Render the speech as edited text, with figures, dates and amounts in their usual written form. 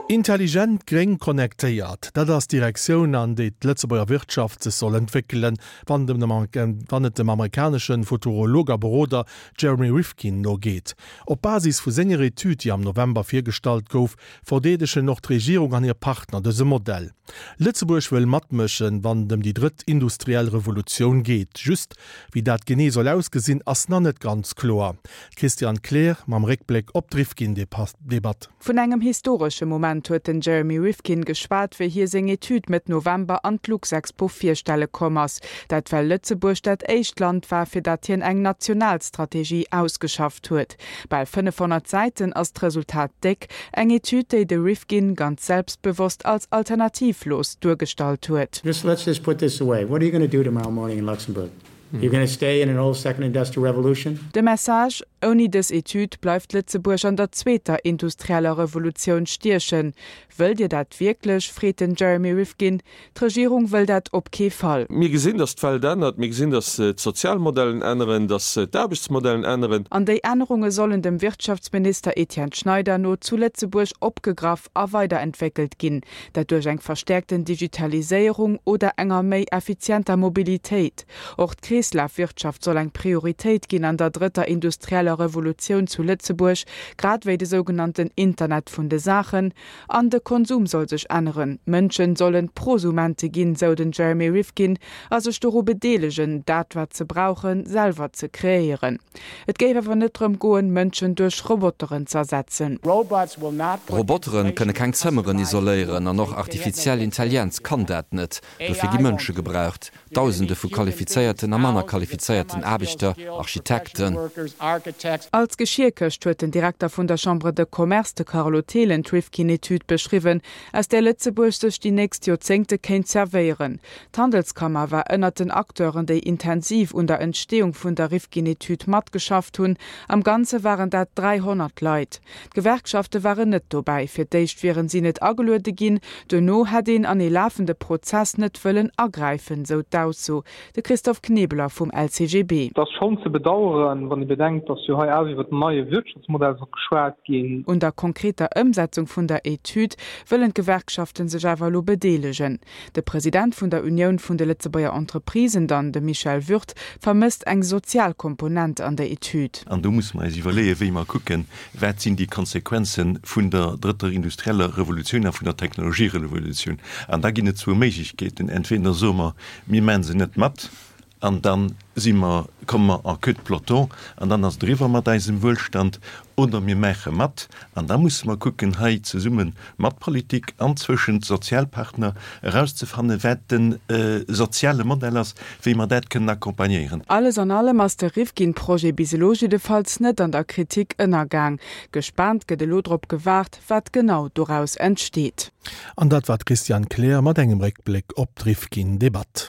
Intelligent, gréng, connectéiert, dat ass d'Direktioun, an déi d'Lëtzebuerger Wirtschaft sech soll entwéckelen, wann et dem amerikanesche Futurolog a Beroder Jeremy Rifkin no geet. Op Basis vu senger Etüd, déi am November virgestallt gouf, verdeedegen och d'Regierung an hir Partner dëse Modell. Lëtzebuerg wëll matmëschen, wann et ëm déi drëtt industriell Revolutioun geet. Just, wéi dat genee soll ausgesinn, ass nach net ganz kloer. D'Christiane Kleer mam Réckbléck op d'Rifkin-Debatt. Vun engem historesche Moment huet den Jeremy Rifkin geschwat, wéi hie seng Etüd Mëtt November an d'Luxexpo virstelle komm ass. Dat well Lëtzebuerg dat éischt Land war, fir dat hien eng national Strategie ausgeschafft huet. Bal 500 Säiten ass d'Resultat déck. Eng Etüd, déi de Rifkin ganz selbstbewosst als alternativlos duergestallt huet. Just let's just put this away, what are you gonna do tomorrow morning in Luxembourg? You're gonna stay in an old second industrial revolution? De Message, Ouni dës Etüd bleift Lëtzebuerg an der zweeter industrieller Revolutioun stiechen. Wëllt Dir dat wierklech? freet den Jeremy Rifkin. D'Regierung wëll dat op kee Fall. Mir gesinn, datt d'Welt ännert. Mir gesinn, datt d'Sozialmodellen änneren, datt d'Aarbechtsmodellen änneren. An déi Ännerunge sollen dem Wirtschaftsminister Etienne Schneider no zu Lëtzebuerg opgegraff a weiderentwéckelt ginn. Dat duerch eng verstäerkten Digitaliséierung oder enger méi effizienter Mobilitéit. Och d'Kreeslafwirtschaft soll eng Prioritéit ginn an der drëtter industrieller Revolutioun zu Lëtzebuerg, grad wéi de sougenannten Internet vun de Saachen. An de Konsum soll sech änneren, D'Mënschen sollen Prosumente ginn, sou den Jeremy Rifkin, a sech doru bedeelegen, dat wat se brauchen, selwer ze kreéieren. Et géif awer net drëm goen, Mënschen duerch Roboteren z'ersetzen. Robotere kënne keng Zëmmeren isoléieren an och artifiziell Intellienz kann dat net. Dofir gi Mënsche gebraucht. Dausende vu qualifizéierten a manner qualifizéierten Aarbechter, Architekten. Als Geschierkëscht huet den Direkter vun der Chambre de Commerce, de Carlo Thelen, d'Rifkin-Etüd beschriwwen, aus där Lëtzebuerg sech déi nächst Joerzéngte kéint zerwéieren. D'Handelskammer war ënnert den Acteuren, déi intensiv un der Entsteeung vun der Rifkin-Etüd matgeschafft hunn. Am Ganze waren dat 300 Leit. D'Gewerkschafte waren net dobäi. Fir d'éischt wieren si net ageluede ginn, duerno hätt een an ee lafende Prozess net wëllen agräifen, sou d'Ausso. De Christophe Knebeler vum LCGB. Et ass schonn ze bedaueren, wann ee bedenkt, datt jo hei awer iwwer den neie Wirtschaftsmodell soll geschwat ginn. Un der konkreter Ëmsetzung vun der Etüd wëllen d'Gewerkschafte sech awer elo bedeelegen. De President vun der Unioun vun de Lëtzebuerger Entreprisen dann, de Michel Würth, vermësst eng sozial Komponent an der Etüd. An do musse mer eis iwwerleeën, wéi mer kucken, wat sinn déi Konsequenze vun der drëtter industrieller Revolutioun a vun der Technologierevolutioun. An da ginn et zwou Méiglechkeeten, Entweder soe mer, mir maache se net mat, an da si mer, komme mer en queue de peloton an dann ass et eriwwer mat eisem Wuelstand, oder mir maache mat an da musse mer kucken, hei zesumme mat Politik an zwëschent Sozialpartner erauszefannen, wat de soziale Modell ass, wéi mer dat kënnen accompagnéieren. Alles an allem ass de Rifkin-Projet bis elo jiddefalls net an der Kritik ënnergaang. Gespaant gëtt elo drop gewaart, wat genau doraus entsteet. An dat war d'Christiane Kleer mat engem Réckbléck op d'Rifkin-Debatt.